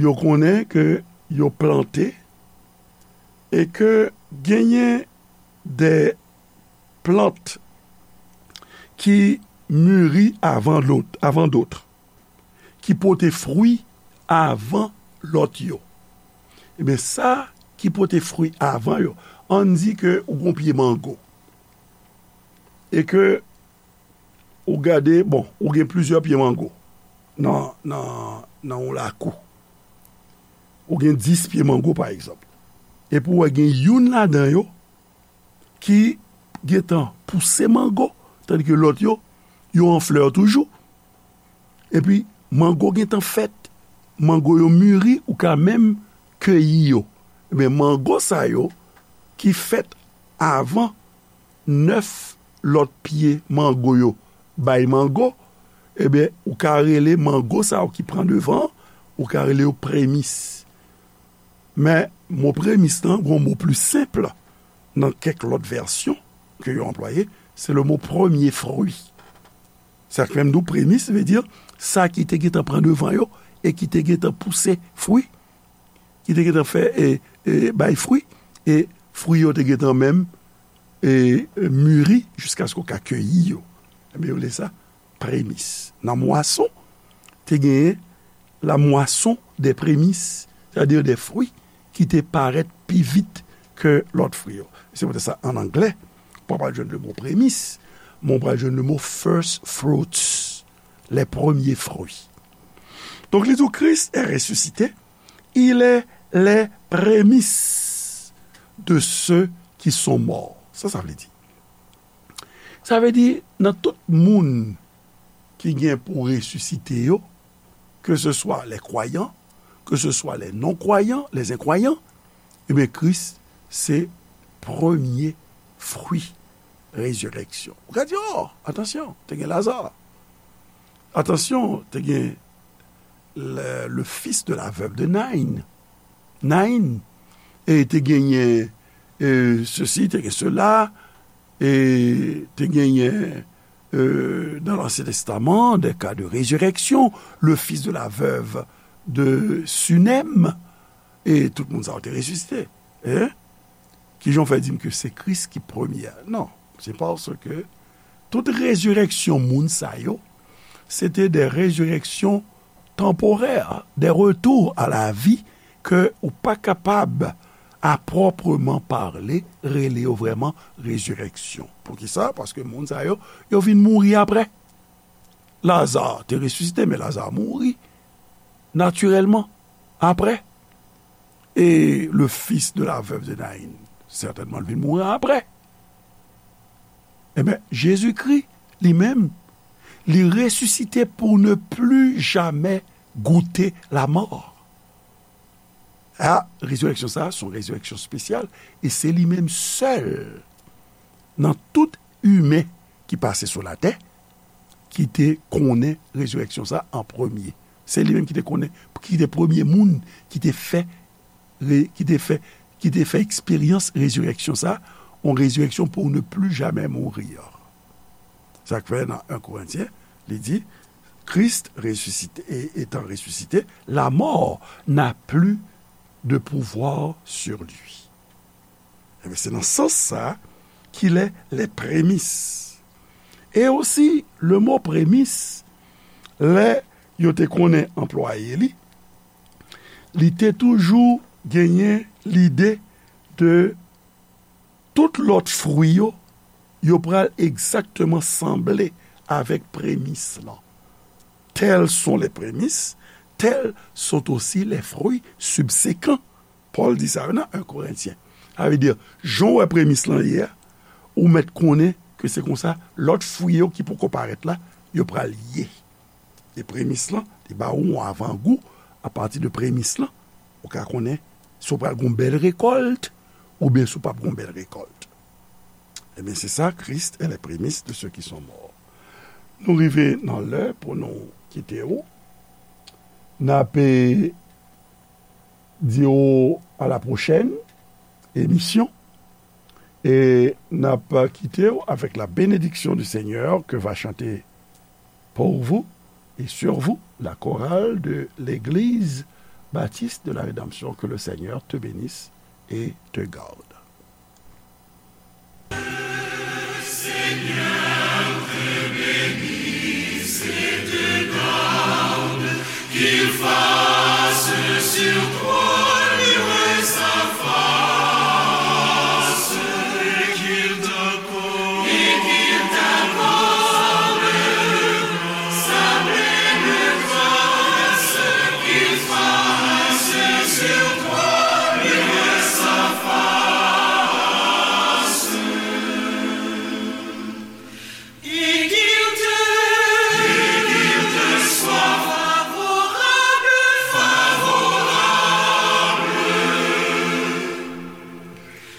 yo konnen ke yo plante e ke genyen de plant ki miri avan lòt, avan dòt, ki pote fwi avan lòt yo. Ebyen, sa ki pote fwi avan yo, ann di ke ou gon pye mango. E ke ou gade, bon, ou gen plizyè pye mango nan, nan, nan yon lakou. Ou gen dis pye mango, pa egzanp. Epi w wè gen youn ladan yo ki gentan pouse mango, tandike lòt yo, yo an flè toujou. Epi, mango gentan fèt, mango yo miri, ou ka menm keyi yo. Ebyen, mango sa yo ki fèt avan nèf lòt pye mango yo bay mango, ebyen, ou ka rele mango sa yo ki pran devan, ou ka rele yo premis. Men, mo premis lan, gon mo pli senp nan kèk lòt vèsyon ke yo anplwaye, se le mo premier fruit. Sa k fè m di w premis, vle di sa ki te gentan pran devan yo e ki te gentan pouse fwi, ki te gentan fè, e, e, bay fwi, e fwi yo te gentan menm, e, e, miri jiskaske w ka keyi yo. Ebyen, yo rele sa premis. Nan mwason, te genyen la moisson des prémices, sètadi de fwi ki te parèt pi vit ke lòt fwi yo. Se poutèt sa, an anglè, ou pa pral jwenn le mo premis, men ou pral jwenn le mo first fruits, les premiers fruits. Donk, li di w, Christ est ressuscité, il est les prémices de ceux qui sont morts. Sa, sa vle di. Sa vle di, nan tout moun ki gen pou resisite yo, ke se swa les croyants, ke se swa les non-croyants, les incroyants, ebyen, Kris se premye fwi rezirèksyon. Ou ka di, oh, atansyon, te gen Laza. Atansyon, te gen le, le fils de la veuve de Nain. Nain. E te genyen, e, sesi, te gen sela, e te genyen, e, dans l'Ancien Testament, des cas de résurrection, le fils de la veuve de Sunem, e tout moun sa yo te resisite. Hein? Kijan w fè di m ke se Kris ki premye a? Non, se paske tout rezirèksyon moun sa yo, se te de rezirèksyon tanporè, des retours à la vie ke ou pa kapab, à proprement parler, rele yo vrèman rezirèksyon. Poukisa? Paske moun sa yo, yo vin mouri apre. Laza te resisite, men Laza mouri natirèlman apre. E le fils de la veuve de Naïn, sètènman, l vin mouri apre. Ebyen, Jezikri, li menm, li resisite pour ne plus jamais goûter la mort. A, rezirèksyon sa a, se yon rezirèksyon espesyal, e se li menm sèl nan tout imen ki pase sou latè ki te konnen rezirèksyon sa a an premye. Se li menm ki te konnen, ki te premye moun ki te fè, re-, ki te fè, ki te fè eksperyans rezirèksyon sa a, yon rezirèksyon pour ne plus jamais mourir. Sa k fè nan en Korentyen, li di, Christ ressuscité, et étant ressuscité, la mort n'a plus de pouvoir sur lui. Ebyen, se nan sans sa a qu'il est les prémices. E osi, le mo premis, lè yo te konnen anplwaye li, li te toujou genyen lide de tout lòt fwi yo, yo pral egzakteman sanble avèk premis lan. Tels sont les prémices, tels sont aussi les fruits subséquents. Pòl di sa yo nan en Korentyen. Sa vle di, jan w wè premis lan ye a, ou mèt konnen ke se konsa lòt fwi yo ki poko parèt la, yo pral ye. E premis lan, li ba ou yon avangou, apati de premis lan, ou ka konnen si w pral gen yon bèl rekòlt, oubyen si w p ap gen yon bèl rekòlt. Ebyen, se sa, Christ est les prémices de ceux qui sont morts. Nou rive nan lè pou nou kite w. N ap, eh, di w à la prochaine émission. E n ap kite w avec la bénédiction du Seigneur que va chanter pour vous et sur vous la chorale de l'Église Baptiste de la Rédemption. Que le Seigneur te bénisse et te garde. Qu'il fasse sur toi luire sa face, et qu'il t'accorde, et qu'il t'accorde sa pleine grâce, qu'il fasse sur toi luire sa face. Et qu'il te, et qu'il te soit favorable, favorable.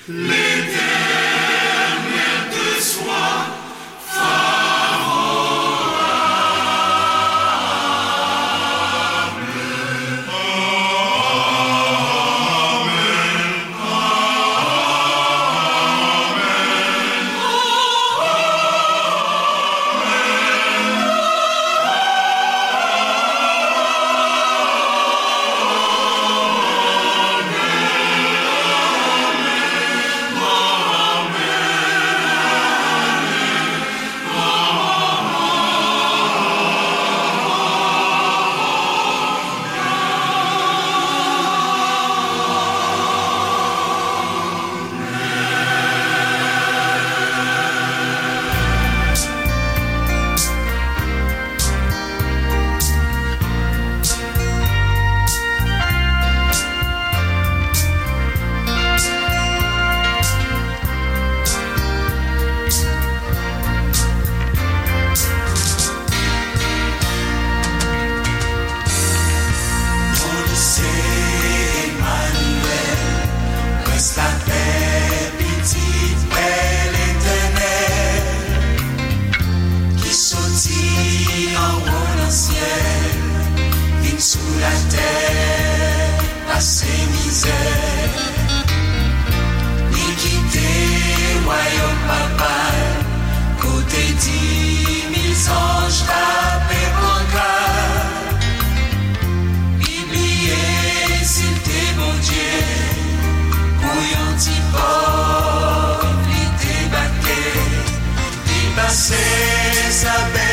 L'Éternel te soit favorable. Amen. Bondye se Emanyèl, Prens lapè, Pitit Pè Letènèl, ki soti anwo nan syèl, vin sou latè, pase mizè. Li kite wayòm Papa l, kote di mil zanj kanpe pran gad. Li bliye si l te Bondye, pou yon ti pòv li debake. Li pase sa bèl